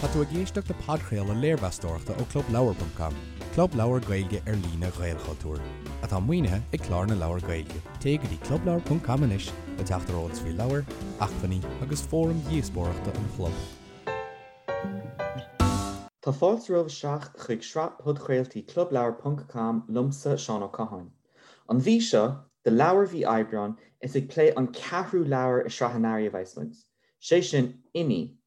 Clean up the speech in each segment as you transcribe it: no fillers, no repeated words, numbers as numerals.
Tá tú ag éisteacht le podchraoladh léirmheastóireachta ó ClubLeabhar.com, club leabhar Gaeilge ar líne Ghaelchultúir, atá maoinithe ag Clár na Leabhar Gaeilge. Téigh go dtí clubleabhar.com anois le teacht ar eolas faoi leabhair, acmhainní agus fóraim dhíospóireachta an chlub. Tá fáilte romhaibh isteach chuig sraith podchraoltaí ClubLeabhar ponc com liomsa, Seán Ó Catháin. An mhí seo, do leabhar mhí Aibreáin, is ag plé an ceathrú leabhar i sraith an Earraigh a bheas muid, sé sin Inní,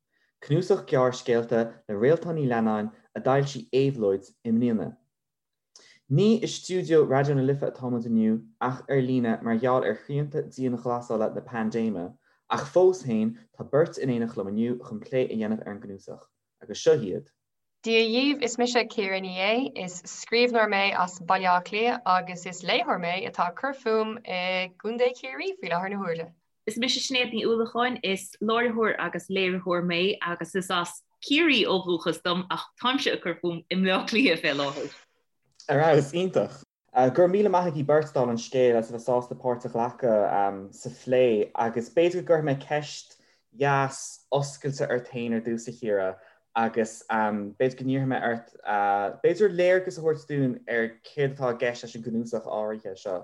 cnuasach gearrscéalta le Réaltán Ní Leannáin a d'fhoilsigh Éabhlóid i mbliana. Ní i stiúideo Raidió na Life atá muid inniu ach ar líne mar gheall ar shrianta dianghlasála na paindéime, ach fós féin tá beirt in éineacht liom inniu chun plé a dhéanamh ar an gcnuasach, agus seo iad. Dia dhaoibh, is mise Ciara Ní É, is scríbhneoir mé as Baile Átha Cliath agus is léitheoir mé atá ag cur fúm i gContae Chiarraí faoi láthair na huaire. Is mise Sinéad Ní Uallacháin, is láithreoir agus léiritheoir mé agus is as Ciarraí ó dhúchas dom ach táimse ag cur fúm i mBleá Cliath fé láthair. Ar fheabhas, iontach. Go raibh míle maith agaibh beirt dála an scéil as a bheith sásta páirt a ghlacadh sa phlé agus b'fhéidir go gcuirfidh mé ceist dheas oscailte ort féin ar dtús a Chiara agus b'fhéidir go n-iarrfaidh mé ort b'fhéidir léargas a thabhairt dúinn ar céard atá i gceist leis an gcnuasach áirithe seo.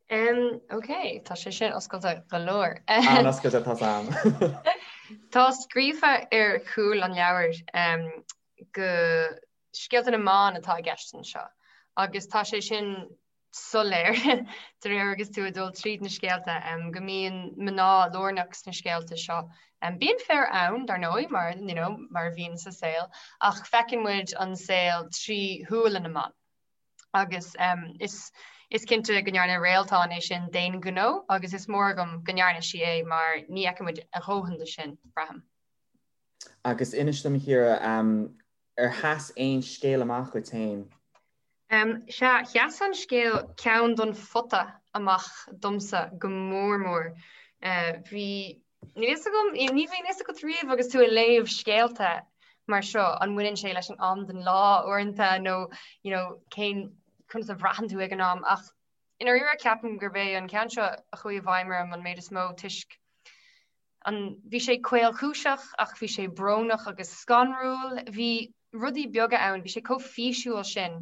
Um, ok, tá sé sin oscailte go leor. An-oscailte tá sam. Tá scríofa ar chúl an leabhair um, go scéalta na mban atá i gceist anseo agus tá sé sin soiléir de réir agus tú ag dul tríd na scéalta um, go mbíonn mná lárnach sna scéalta seo. Um, bíonn fir ann dar ndóigh mar, you know, mar a bhíonn sa saol ach feiceann muid an saol trí shúile na mban. Agus is is cinnte go ndearna Réaltán é sin d'aon ghnó agus is mór agam go ndearna sí é mar ní fheiceann muid a dhóthain de sin, braithim. Agus inis dom, a Chiara, ar sheas aon scéal amach dhuit féin? Sea, sheas an scéal 'Ceann don Phota' amach domsa go mór mór. Bhí Níl fhios agam, ní bhíonn fhios agat riamh agus tú ag léamh scéalta mar seo, an mbaineann sé leis an am den lá uaireanta nó you know, cén conas a bhraitheann tú ag an am ach i ndáiríre ceapaim gurb é an ceann seo a chuaigh i bhfeidhm orm an méid is mó toisc an bhí sé caolchúiseach ach bhí sé brónach agus scanrúil. Bhí rudaí beaga ann, bhí sé chomh físiúil sin,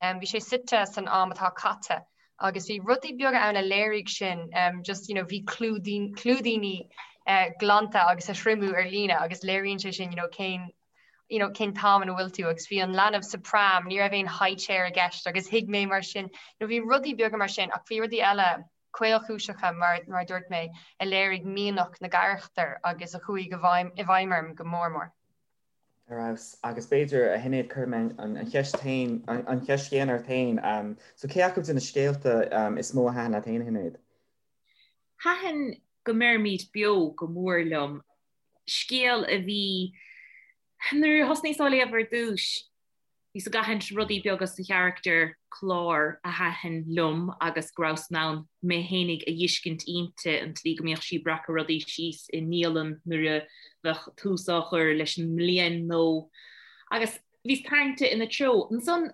bhí sé suite san am atá caite agus bhí rudaí beaga ann a léirigh sin, just you know bhí clúidíní glanta agus á dtriomú ar líne agus léiríonn sé sin you know cén you know cén t-am ina bhfuil tú agus bhí an leanbh sa pram, ní raibh aon high chair i gceist agus thuig mé mar sin, you know bhí rudaí beaga mar sin ach bhí rudaí eile caolchúiseacha mar mar a dúirt mé a léirigh mianach na gcarachtar agus a chuaigh i bhfeidhm i bhfeidhm orm go mór mór. Ar fheabhas. Agus b'fhéidir, a Shinéad, cuirfidh mé an cheist féin, an cheist chéanna ort féin. So cé acu de na scéalta is mó a thaitin leat féin, a Shinéad? Thaitin Go mBeirimid Beo go mór liom. Scéal a bhí, nuair a thosnaíos á léamh ar dtús, Bhíos ag aithint rudaí beaga sa charachtar Clár a thaitin liom agus go rabhas in ann mé fhéinig a dh'fheiscint inti, an tslí go mbíodh sí ag breacadh rudaí síos i ndialann nuair a bheadh tús á chur leis an mbliain nó. Agus bhíos tarraingte ina treo. Ansan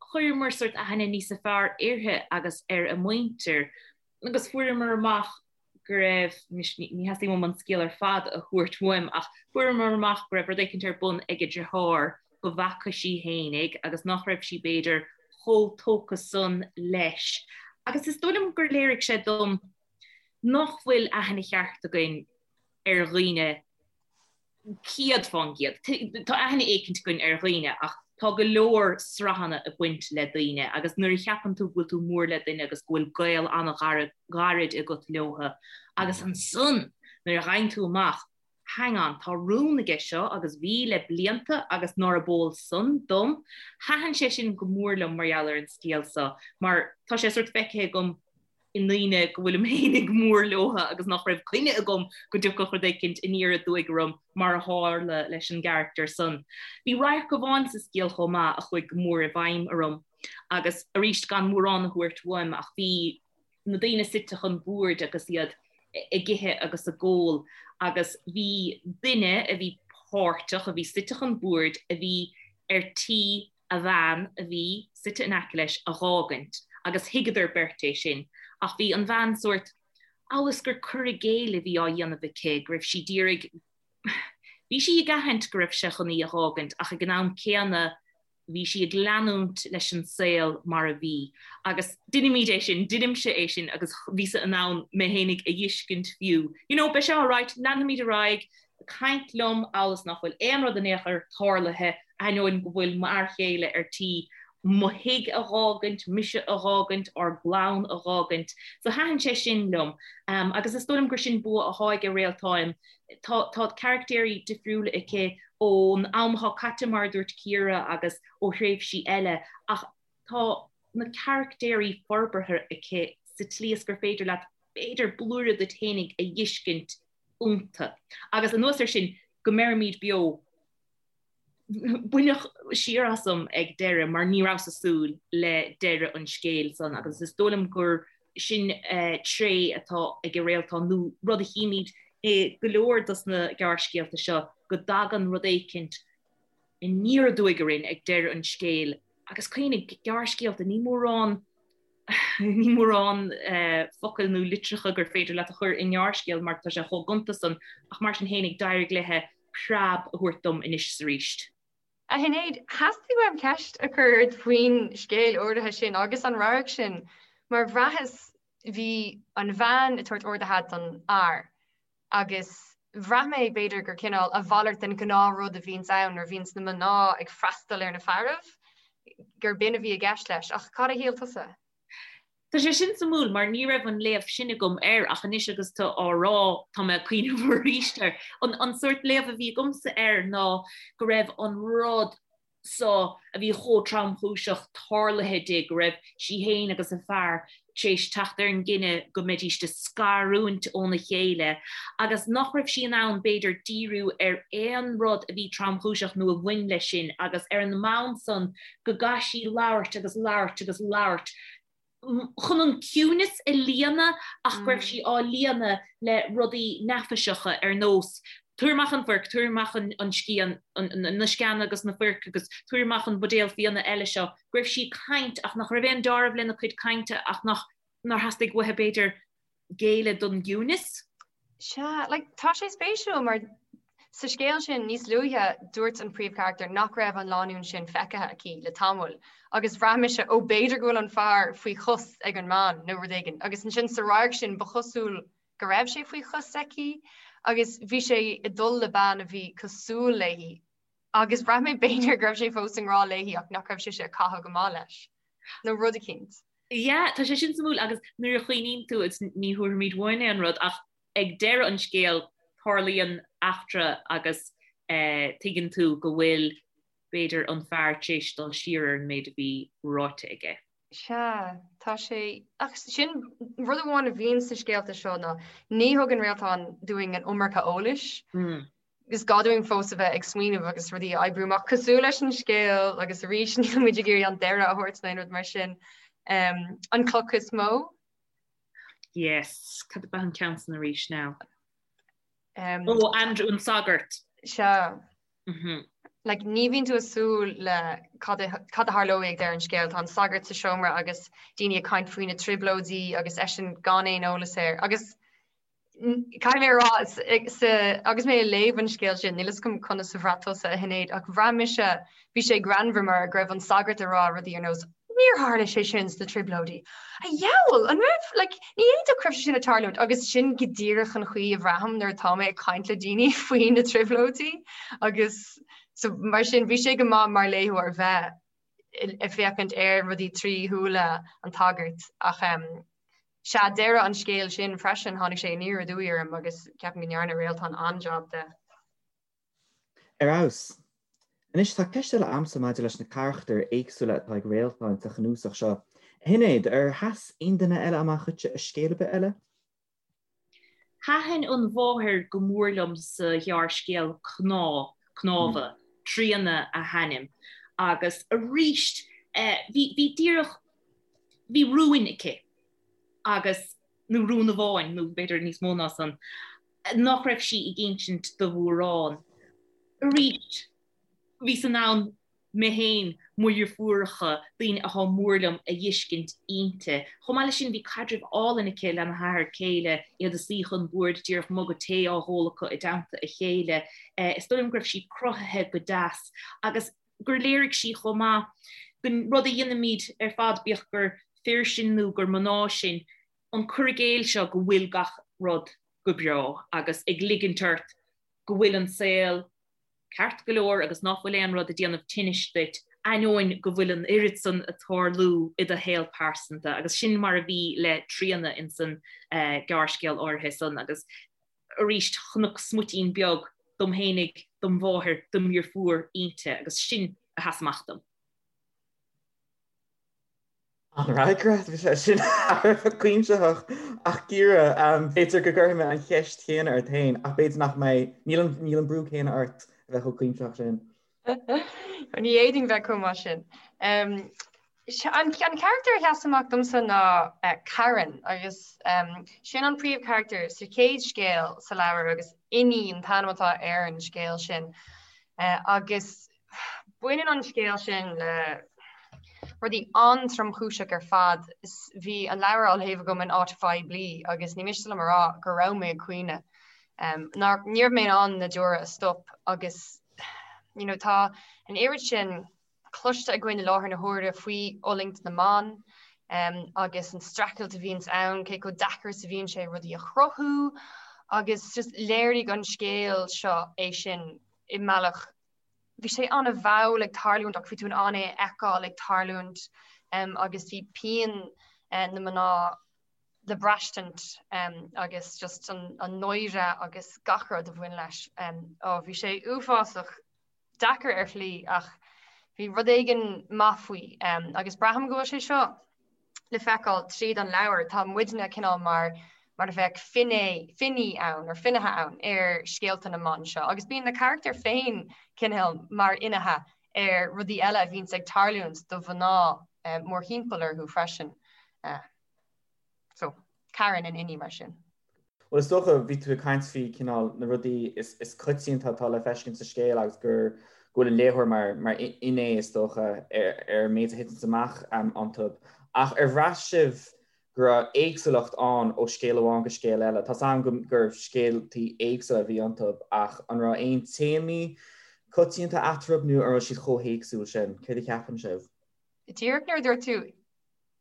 chuireamar sórt aithne níosa fearr uirthi agus ar a muintir agus fuaireamar amach go raibh, anois ní theastaíonn uaim an scéal ar fad a thabhairt uaim, ach fuaireamar amach go raibh rud éicint ar bun ag a deartháir go bhfaca sí fhéinig agus nach raibh sí b'fhéidir chomh tógtha san leis. Agus is dóigh liom gur léirigh sé dom nach bhfuil aithne cheart againn ar dhaoine 100%. Tá aithne éicint againn ar dhaoine ach tá go leor sraitheanna ag baint le daoine agus nuair a cheapann tú go bhfuil tú mór le duine agus go bhfuil gaol an-ghairid agat leotha agus ansan nuair a fhaigheann tú amach hang on, tá rún aige seo agus bhí le blianta agus nárab eol san dom, thaitin sé sin go mór liom mar gheall ar an scéal seo mar tá sé sórt feicthe agam i ndaoine go bhfuilim fhéinig mór leotha agus nach raibh coinne agam go dtiocfadh rud éicint aniar aduaidh orm mar a tharla leis an gcarachtar san. Bhí radharc amháin sa scéal chomh maith a chuaigh go mór i bhfeidhm orm agus arís gan mórán a thabhairt uaim ach bhí na daoine suite chun boird agus iad ag ithe agus ag ól agus bhí duine a bhí páirteach, a bhí suite chun boird, a bhí ar tí a bhean a bhí suite in aice leis a dh'fhágaint agus thuigeadar beirt é sin ach bhí an bhean sórt amhail is gur cur i gcéill a bhí á dhéanamh aici, go raibh sí d'iarraidh. Bhí sí ag aithint go raibh sé chun í a dh'fhágaint ach ag an am céanna bhí sí ag leanúint leis an saol mar a bhí. Agus deinimid é sin, deinimse é sin agus bhíos-sa in ann mé fhéinig a dh'fheiscint fiú. You know, beidh sé alright, leanfaimid ar aghaidh, ag caint liom amhail is nach bhfuil aon rud in aon chor tarlaithe, ainneoin go bhfuil m'fhear chéile ar tí mo thigh a dh'fhágaint, mise a dh'fhágaint, ár gclann a dh'fhágaint. So thaitin sé sin liom. Agus is dóigh liom gur sin bua athá aige Réaltán. Tá tá caractéirí difriúla aici ón am athá caite mar a dúirt Ciara agus ó thréimhsí eile ach tá na caractéirí forbartha aici sa tslí is gur féidir leat b'fhéidir blúire duit fhéinig a dh'fheiscint iontu. Agus anuas air sin, go mbeirimid beo, baineadh siar asam ag deireadh mar ní rabhas ag súil le deireadh an scéil san agus is dóigh liom gur sin tréith atá ag Réaltán nó rud a chímid i go leor dos na gearrscéalta seo go dtagann rud éicint aniar aduaidh orainn ag deireadh an scéil agus cuimhnigh, gearrscéalta, ní mórán ní mórán focail nó litreacha gur féidir leat a chur i ngearrscéal mar tá sé chomh gonta san ach mar sin fhéinig d'éirigh léithe preab a thabhairt dom anois is arís. A Shinéad, theastaigh uaim ceist a chur ort faoin scéal áirithe sin agus an radharc sin mar bhraitheas bhí an bhean ag tabhairt ordaithe don fhear agus bhraith mé b'fhéidir gur cineál a mhalairt den ghnáthrud a bhíonns ann nuair a bhíonns na mná ag freastal ar na fearaibh, gur b'in a bhí i gceist leis. Ach cad a shíl tusa? Tá sé sin suimiúil mar ní raibh an léamh sin agam air ach anois agus tú á rá tá mé ag cuimhneamh arís air. An sórt léamh a bhí agamsa air ná go raibh an rud so a bhí chomh tromchúiseach tarlaithe di, go raibh sí féin agus a fear tar éis teacht ar an gcinneadh go mbeidíst ag scarúint óna chéile agus nach raibh sí in ann, b'fhéidir, díriú ar aon rud a bhí tromchúiseach nó a bhain leis sin agus ar an mbonn san go gcaithfidh sí labhairt agus labhairt agus labhairt chun an ciúineas a líonadh ach go raibh sí á líonadh le rudaí neafaiseacha ar nós tabhair amach an foirc, tabhair amach an scian, na sceana agus na foirc agus tabhair amach an buidéal fíona eile seo, go raibh sí ag caint ach nach raibh aon deáramh lena cuid cainte ach nach nár theastaigh uaithi b'fhéidir géilleadh don gciúineas. Sea, like, tá sé spéisiúil mar sa scéal sin níos luaithe dúirt an príomhcharachtar nach raibh an lánúin sin feicthe aici le tamall agus bhraith mise ó b'fhéidir go bhfuil an fear faoi chos ag an mbean nó rud éigin agus ansin sa radharc sin ba chosúil go raibh sé faoi chos aici agus bhí sé ag dul le bean a bhí cosúil léi agus bhraith mé b'fhéidir go raibh sé fós i ngrá léi ach nach raibh sise ag caitheamh go maith leis nó rud eicínt. Yeah, tá sé sin suimiúil agus nuair a chuimhníonn tú, is ní thabharfaimid uainn aon rud ach ag deireadh an scéil tarlaíonn eachtra agus tuigeann tú go bhfuil b'fhéidir an fear tar éis dul siar ar an méid a bhí ráite aige. Sea, tá sé, ach sin rud amháin a bhíonn sna scéalta seo ná ní thugann Réaltán dúinn an iomarca eolais. Is gá dúinn fós a bheith ag smaoineamh agus rudaí a oibriú amach cosúil leis an scéal agus arís níl muid ag iarraidh an deireadh a thabhairt nó aon rud mar sin. An cloch is mó? Yes, cad ab ea an ceann san arís now? Um, oh, Andrew an sagart. Sea. Mm -hmm. Like, ní bhíonn tú ag súil le cad a, cad a tharlóidh ag deireadh an scéil. Tá an sagart sa seomra agus daoine ag caint faoi na trioblóidí agus eisean gan aon eolas air. Agus Caithfidh mé a rá, agus mé ag léamh an scéil sin, níl fhios agam conas a bhraith tusa, a Shinéad, ach bhraith mise, bhí sé greannmhar mar go raibh an sagart ag rá rudaí ar nós, níor tharla sé sin sna Trioblóidí. A dheabhail, an raibh, like, ní fhéadfadh go raibh sé sin ag tarlúint agus sin go díreach an chaoi a bhraithim nuair atá mé ag caint le daoine faoi na Trioblóidí agus so mar sin bhí sé go maith mar léitheoir bheith ag féachaint ar rudaí trí shúile an tsagairt ach sea, deireadh an scéil sin freisin, tháinig sé aniar aduaidh orm agus ceapaim go ndearna Réaltán an-jab de. Ar fheabhas. Anois, tá ceist eile a'msa maidir leis na carachtair éagsúla atá ag Réaltán sa chnuasach seo. A Shinéad, ar sheas aon duine eile amach dhuitse i scéal ar bith eile? Thaitin an mháthair go mór liom sa ghearrscéal Cnámh, Cnámha, Tríona a hainm, agus arís bhí, bhí díreach, bhí rúin aici agus, nó rún amháin, nó b'fhéidir níos mó ná san, nach raibh sí ag insint do mhórán. Arís, bhíos in ann. mé féin, mo dheirfiúracha, daoine athá mór liom a dh'fheiscint inti. Chomh maith leis sin bhí caidreamh álainn aici lena hathair céile, iad ag suí chun boird díreach muga tae á dh'ól acu i dteannta a chéile. Is dóigh liom go raibh sí cruthaithe go deas agus gur léirigh sí chomh maith gon rud a dhéanaimid ar fad, bíodh gur fir sinn nó gur mná sinn, an cur i gcéill seo go bhfuil gach rud go breá agus ag ligint ort go bhfuil an saol ceart go leor agus ná fuil aon rud ag déanamh tinnis duit, ainneoin go bhfuil an oiread san ag tarlú i do shaol pearsanta. Agus sin mar a bhí le Tríona insan gearrscéal áirithe san. Agus arís chonac smuitín beag dom fhéinig, dom mháthair, dom dheirfiúr inti agus sin a sheas amach dom. An-fhreagra, bhí sé sin thar a bheith cuimsitheach. Ach Ciara, b'fhéidir go gcuirfidh mé an cheist chéanna ort féin, ach b'fhéidir nach mbeidh, níl an, níl an brú céanna ort a bheith chomh cuimsitheach sin. Ní fhéadfainn bheith chomh maith sin. An carachtar a sheas amach domsa ná Karen agus sin an príomhcharachtar sa chéad scéal sa leabhar agus Inní an t-ainm atá ar an scéal sin. Agus Baineann an scéal sin le rudaí an-tromchúiseach ar fad. Bhí an leabhar á léamh agam in áit phoiblí agus ní miste liom a rá go raibh mé ag caoineadh. Ní raibh mé in ann na deora a stop agus you know tá an oiread sin cloiste againn i láthair na huaire faoi fhulaingt na mban agus an streachailt a bhíonns ann, cé chomh deacair is a bhíonn sé rudaí a chruthú agus just léirigh an scéal seo é sin i mbealach bhí sé an-mhall ag tarlúint ach bhí tú in ann é a fheiceáil ag tarlúint agus bhí pian na mná le braistint agus just an náire agus gach rud a bhain leis. Ó bhí sé uafásach deacair ar shlí ach bhí rud éigin maith faoi agus braithim go bhfuil sé seo le feiceáil tríd an leabhar, tá muidne cineál mar mar a bheadh finné, finní ann, or finnéithe ann ar scéalta na mban seo, agus bíonn na carachtair féin cineál mar fhinnéithe ar rudaí eile a bhíonns ag tarlúint do mhná mórthimpeall orthu freisin. So, Karen in Inní mar sin. Bhuel, is dócha, bhí tú ag caint faoi cineál na rudaí is coitianta atá le feiscint sa scéal agus gur go bhfuil an léitheoir mar mar fhinné, is dócha, ar ar an méid a thiteanns amach iontu. Ach ar bhraith sibh go raibh éagsúlacht ann ó scéal amháin go scéal eile? Tá's agam go gur scéaltaí éagsúla a bhí iontu ach an raibh aon téamaí coitianta eatarthu nó an raibh siad chomh héagsúil sin? Céard a cheapann sibh? Díreach nuair a dúirt tú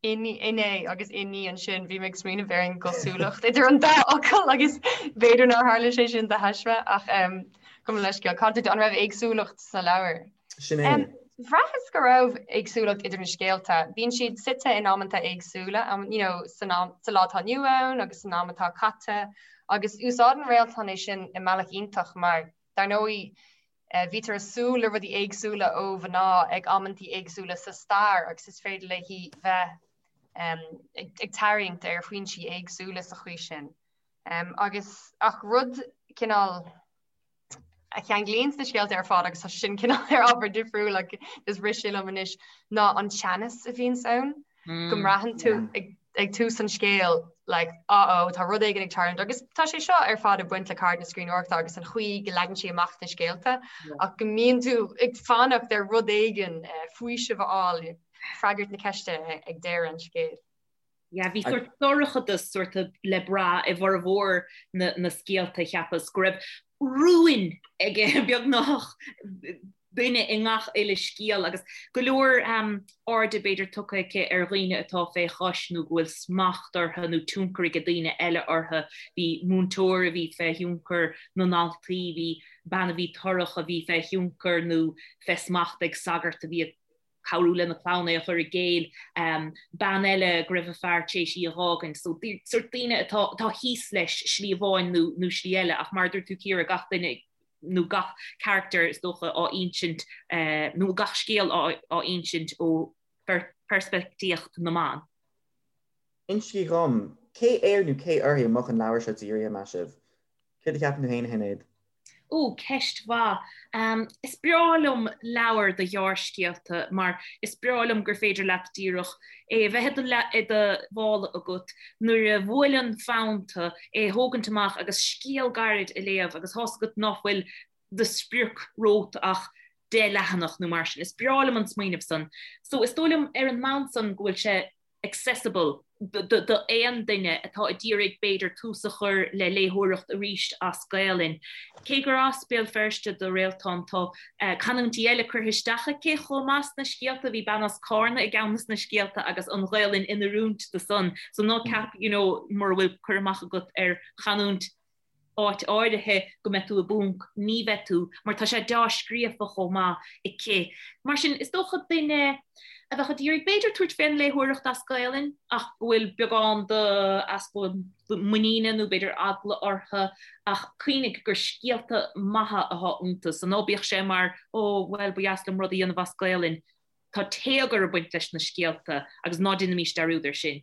Inné agus inní ansin, bhí mé ag smaoineamh ar an gcosúlacht idir an dá fhocal agus b'fhéidir nár tharla sé sin de thaisme ach gabh mo leithscéal. Cad an raibh éagsúlacht sna leabhair? Sin é. Bhraitheas go raibh éagsúlacht idir na scéalta. Bíonn siad suite in amanta éagsúla, you know, san am, sa lá atá inniu ann agus san am atá caite agus úsáideann Réaltán é sin i mbealach iontach mar, dar ndóigh, Bítear ag súil le rudaí éagsúla ó mhná ag amantaí éagsúla sa stair agus is féidir léi bheith ag tarraingt ar foinsí éagsúla sa chaoi sin. Agus ach rud cineál a cheanglaíonn na scéalta ar fad agus tá sin cineál ar ábhar difriúil ach is rith sé liom anois ná an teannas a bhíonns ann. go mbraitheann tú ag tús an scéil like uh oh tá rud éigin ag tarlúint agus tá sé seo ar fad ag baint le ceird na scríbhneoireachta agus an chaoi go leagann sí amach na scéalta ach go mbíonn tú ag fanacht ar rud éigin faoiseamh a fháil freagairt na ceiste ag deireadh an scéil. Yeah, bhí sort dorchadas sort le brath i bhformhór na, na scéalta cheapas go raibh rúin ag beagnach duine i ngach uile scéal agus go leor airde b'fhéidir tugtha aici ar dhaoine atá fé chois nó go bhfuil smacht orthu nó tionchar ag daoine eile orthu. Bhí múinteoir a bhí fé thionchar na ndaltaí, bhí bean a bhí torrach a bhí fé thionchar nó fé smacht ag sagart a bhí ag cabhrú lena clann é a chur i gcéill, bean eile go raibh a fear tar éis í a dh'fhágaint. So sort daoine atá atá thíos leis slí amháin nó nó slí eile ach mar a dúirt tú Ciara gach duine nó gach carachtar is dócha á insint nó gach scéal á insint ó pheirspictíocht na mban. Insígí dhom, cé air nó cé uirthi a mbeadh an leabhar seo dírithe, meas sibh? Céard a cheapann tú féin, a Shinéad? Ó, ceist mhaith. Is breá liom leabhair de ghearrscéalta mar is breá liom gur féidir leat díreach é a bheith i do mhála agat nuair a bhuaileann fonn tú, é a thógaint amach agus scéal gairid a léamh agus tá's agat ná fuil de sprioc romhat ach. 10 leathanach nó mar sin. Is breá liom an smaoineamh san. So is dóigh liom ar an mbonn san go bhfuil sé accessible do aon duine atá ag iarraidh b'fhéidir tús a chur le léitheoireacht arís as Gaelainn. Cé gur as Béal Feirste do Réaltán tá canúintí eile curtha isteach aici chomh maith sna scéalta, bhí bean as Cárna i gceann des na scéalta agus an Ghaelainn in oiriúint do san. So ná ceap you know mura bhfuil cur amach agat ar chanúint áit áirithe go mbeidh tú i bponc, ní bheidh tú, mar tá sé deá-scríofa chomh maith aici. Mar sin, is dócha duine a bheadh ag iarraidh b'fhéidir tabhairt fén léitheoireacht as Gaelainn ach go bhfuil beagán de easpa muiníne nó b'fhéidir eagla orthu ach cuimhnigh gur scéalta maithe atá iontu so ná bíodh sé mar ó bhuel ba dheas liom rud a dhéanamh as Gaelainn. Tá téagar ag baint leis na scéalta agus ná déanaimis dearúd air sin.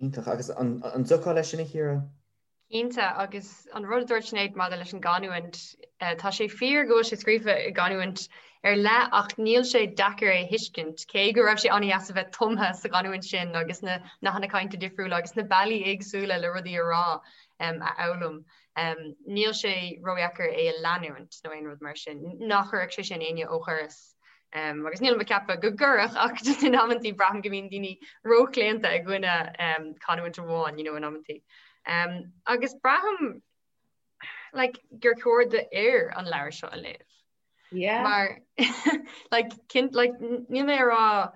Iontach. Agus an dtiocfá leis sin, a Chiara? Cinnte, agus an rud a dúirt Sinéad maidir leis an gcanúint, tá sé fíor go bhfuil sé scríofa i gcanúint ar leith ach níl sé deacair é a thuiscint, cé go raibh sé an-deas a bheith tumtha sa gcanúint sin agus na nathanna cainte difriúla agus na bealaí éagsúla le rudaí a rá a fhoghlaim. Níl sé ródheacair é a leanúint nó aon rud mar sin. Ná cuirfeadh sé sin éinne ó dhoras. Um, agus nílim ag ceapadh go gcuirfeadh ach just in amantaí braithim go mbíonn daoine róchlaonta i gcoinne um, canúint amháin, you know, in amantaí. Um, agus braithim like, gur chóir d'fhir an leabhar seo a léamh. Yeah. Mar like, cinn, like, níl mé ag rá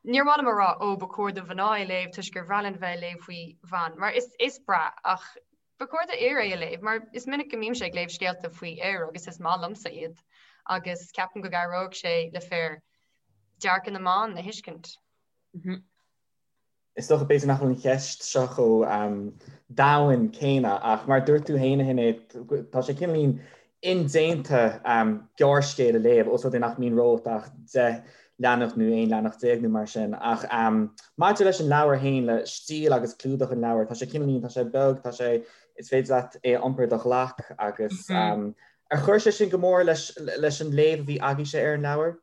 níor mhaith liom a rá ó ba chóir do mhná é léamh toisc gur bhreá linn bheith ag léamh faoi bhan mar is, is breá ach Ba chóir d'fhir é a léamh, mar is minic go mbímse ag léamh scéalta faoi fhir agus is maith liomsa iad, agus ceapaim go gcabhródh sé le fir dearcadh na mban a thuiscint. Is dócha b'fhéidir nach bhfuil an cheist seo chomh domhain céanna ach mar a dúirt tú féin a Shinéad, tá sé cineáilín indéanta gearrscéal a léamh, ós rud é nach mbíonn romhat ach 10 leathanach nó 11 leathanach nó mar sin. Ach maidir leis an leabhar féin, le stíl agus clúdach an leabhair, tá sé cineáilín, tá sé beag, tá sé, is féidir leat é a iompar i do ghlac agus ar chuir sé sin go mór leis leis an léamh a bhí agaibhse ar an leabhar?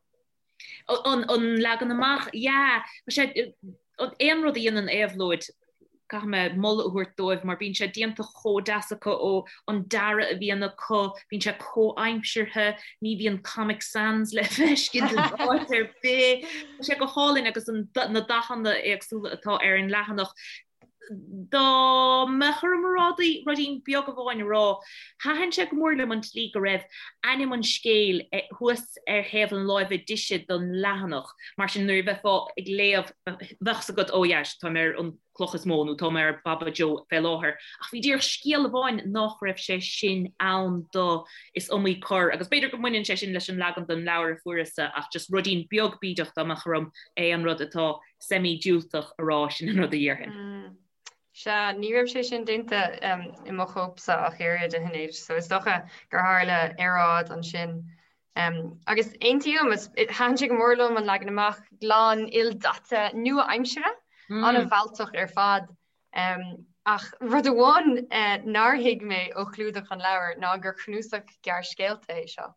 An leagan amach, yeah. Tá sé, aon rud a dhéanann Éabhlóid, caithfidh mé moladh a thabhairt dóibh mar bíonn sé déanta chomh deas acu ó an dearadh a bhíonn acu, bíonn sé comhaimseartha, ní bhíonn Comic Sans le feiscint in áit ar bith. Tá sé go hálainn agus na dathanna éagsúla atá ar an leathanach. Dá mbeadh orm rudaí beag amháin a rá, thaitin sé go mór liom an tslí go raibh ainm an scéil thuas ar thaobh na láimhe deise den leathanach, mar sin nuair a bheifeá ag léamh bheadh fhios agat oh yeah táim ar an cloch is mó nó táim ar Baba Joe fé láthair. Ach bhí díreach scéal amháin nach raibh sé sin ann do is iomaí cor agus b'fhéidir go mbaineann sé sin leis an leagan den leabhar a fuaireas-sa ach just ruidín beag bídeach dá mbeadh orm aon rud atá semi-diúltach a rá, sin an rud a dhéarfainn. Sea, ní raibh sé sin déanta i mo chóipse ach oiread, a Shinéad, so is dócha gur tharla earráid ansin. Agus aontaím, thaitin sé go mór liom an leagan amach glan, ildaite, nua-aimseartha, an-mhealltach ar fad. Ach rud amháin nár thuig mé ó chlúdach an leabhair ná gur cnuasach gearrscéalta é seo.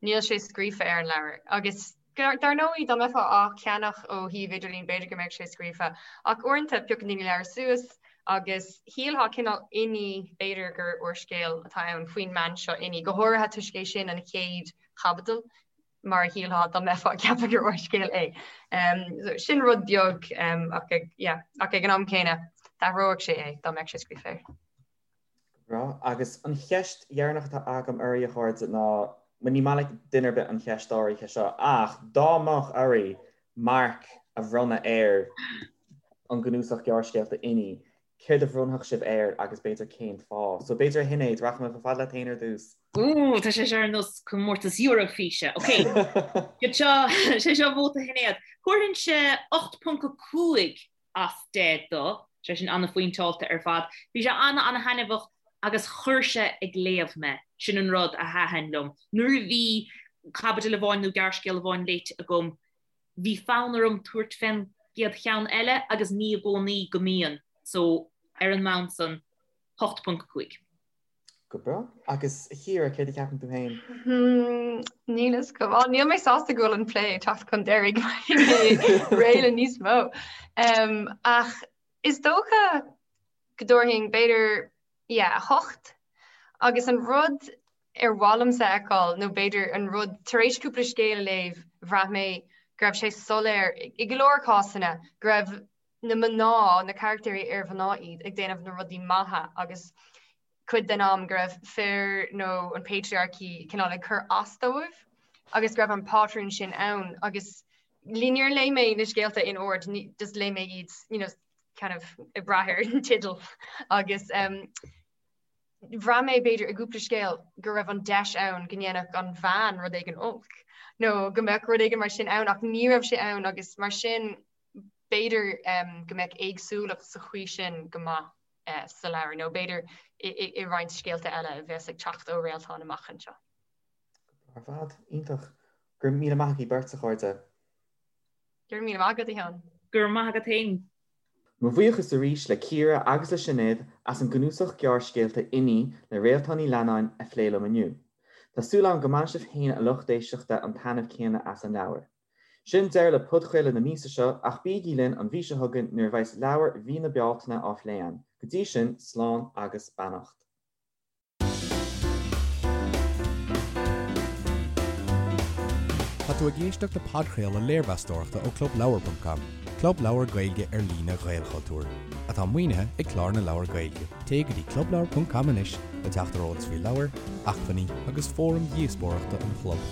Níl sé scríofa ar an leabhar. Agus dar ndóigh, dá mbeifeá á cheannach ó shuíomh idirlín, b'fhéidir go mbeadh sé scríofa. Ach uaireanta, piocann daoine leabhar suas agus shílfeá cineál Inní, b'fhéidir gur úrscéal atá ann faoin mbean seo Inní, go háirithe toisc é sin an chéad chaibidil, mar a shílfeá dá mbeifeá ag ceapadh gur úrscéal é. Sin rud beag ach ag, yeah, ach ag an am céanna, d'athródh sé é dá mbeadh sé scríofa air. Breá. Agus an cheist dheireanach atá agam oraibh, a chairde, ná, bhuel, ní maith le duine ar bith an cheist áirithe seo, ach dá mbeadh oraibh marc a bhronnadh ar an gcnuasach gearrscéalta Inní, céard a bhronnfadh sibh air agus b'fhéidir cén fáth? So b'fhéidir a Shinéad, rachaidh mé chomh fada leat féin ar dtús. Ooh, tá sé seo ar nós comórtas Eurofíse. Ok, sé seo vóta Shinéad. Thabharfainnse 8.5 as 10 dó, sé sin an-phointeáilte ar fad. Bhí sé an-an-thaitneamhach agus chuir sé ag léamh mé, sin an rud a thaitin liom. Nuair a bhí caibidil amháin nó gearrscéal amháin léite agam, bhí fonn orm tabhairt fén gcéad cheann eile agus ní i gcónaí go mbíonn, so ar an mbonn san, 8.5. Go breá. Agus a Chiara, céard a cheapann tú féin? Níl fhios agam. Á, níl mé sásta go bhfuil an plé ag teacht chun deiridh réidh le níos mó. Ach is dócha go dtabharfainn b'fhéidir, yeah, 8. Agus an rud. ar mhaith liomsa a fheiceáil, nó b'fhéidir an rud, tar éis cúpla scéal a léamh, bhraith mé go raibh sé soiléir i go leor cásanna go raibh na mná, na carachtéirí ar mhná iad, ag déanamh na rudaí maithe agus cuid den am go raibh fir nó an patriarchy cineál ag cur as dóibh agus go raibh an pátrún sin ann agus níor léigh mé na scéalta in ord, just léigh mé iad you know, kind of ag brath ar an teideal agus um, bhraith mé b'fhéidir i gcúpla scéal go raibh an deis ann go ndéanfadh an bhean rud éigin olc nó go mbeadh rud éigin mar sin ann ach ní raibh sé ann agus mar sin b'fhéidir um, go mbeadh éagsúlacht sa chaoi sin go maith uh, sa leabhar nó b'fhéidir i, i, i roinnt scéalta eile a bheas ag teacht ó Réaltán amach anseo. Ar fad, iontach. Go raibh míle maith agaibh beirt, a chairde. Go raibh míle maith agat, a Sheáin. Go raibh maith agat féin. Mo bhuíochas arís le Ciara agus le Sinéad as an gcnuasach gearrscéalta Inní le Réaltán Ní Leannáin a phlé liom inniu. Tá súil agam go mbainfidh sibh féin a lucht éisteachta an taitneamh céanna as an leabhar. Sin deireadh le podchraoladh na míosa seo ach bígí linn an mhí seo chugainn nuair a bheas leabhar mhí na Bealtaine á phlé againn. Go dtí sin, slán agus beannacht. Tá tú ag éisteacht le podchraoladh léirmheastóireachta ó ClubLeabhar.com, club leabhar Gaeilge ar líne Ghaelchultúir, atá maoinithe ag Clár na Leabhar Gaeilge. Téigh go dtí clubleabhar.com anois le teacht ar eolas faoi leabhair, acmhainní agus fóraim dhíospóireachta an chlub.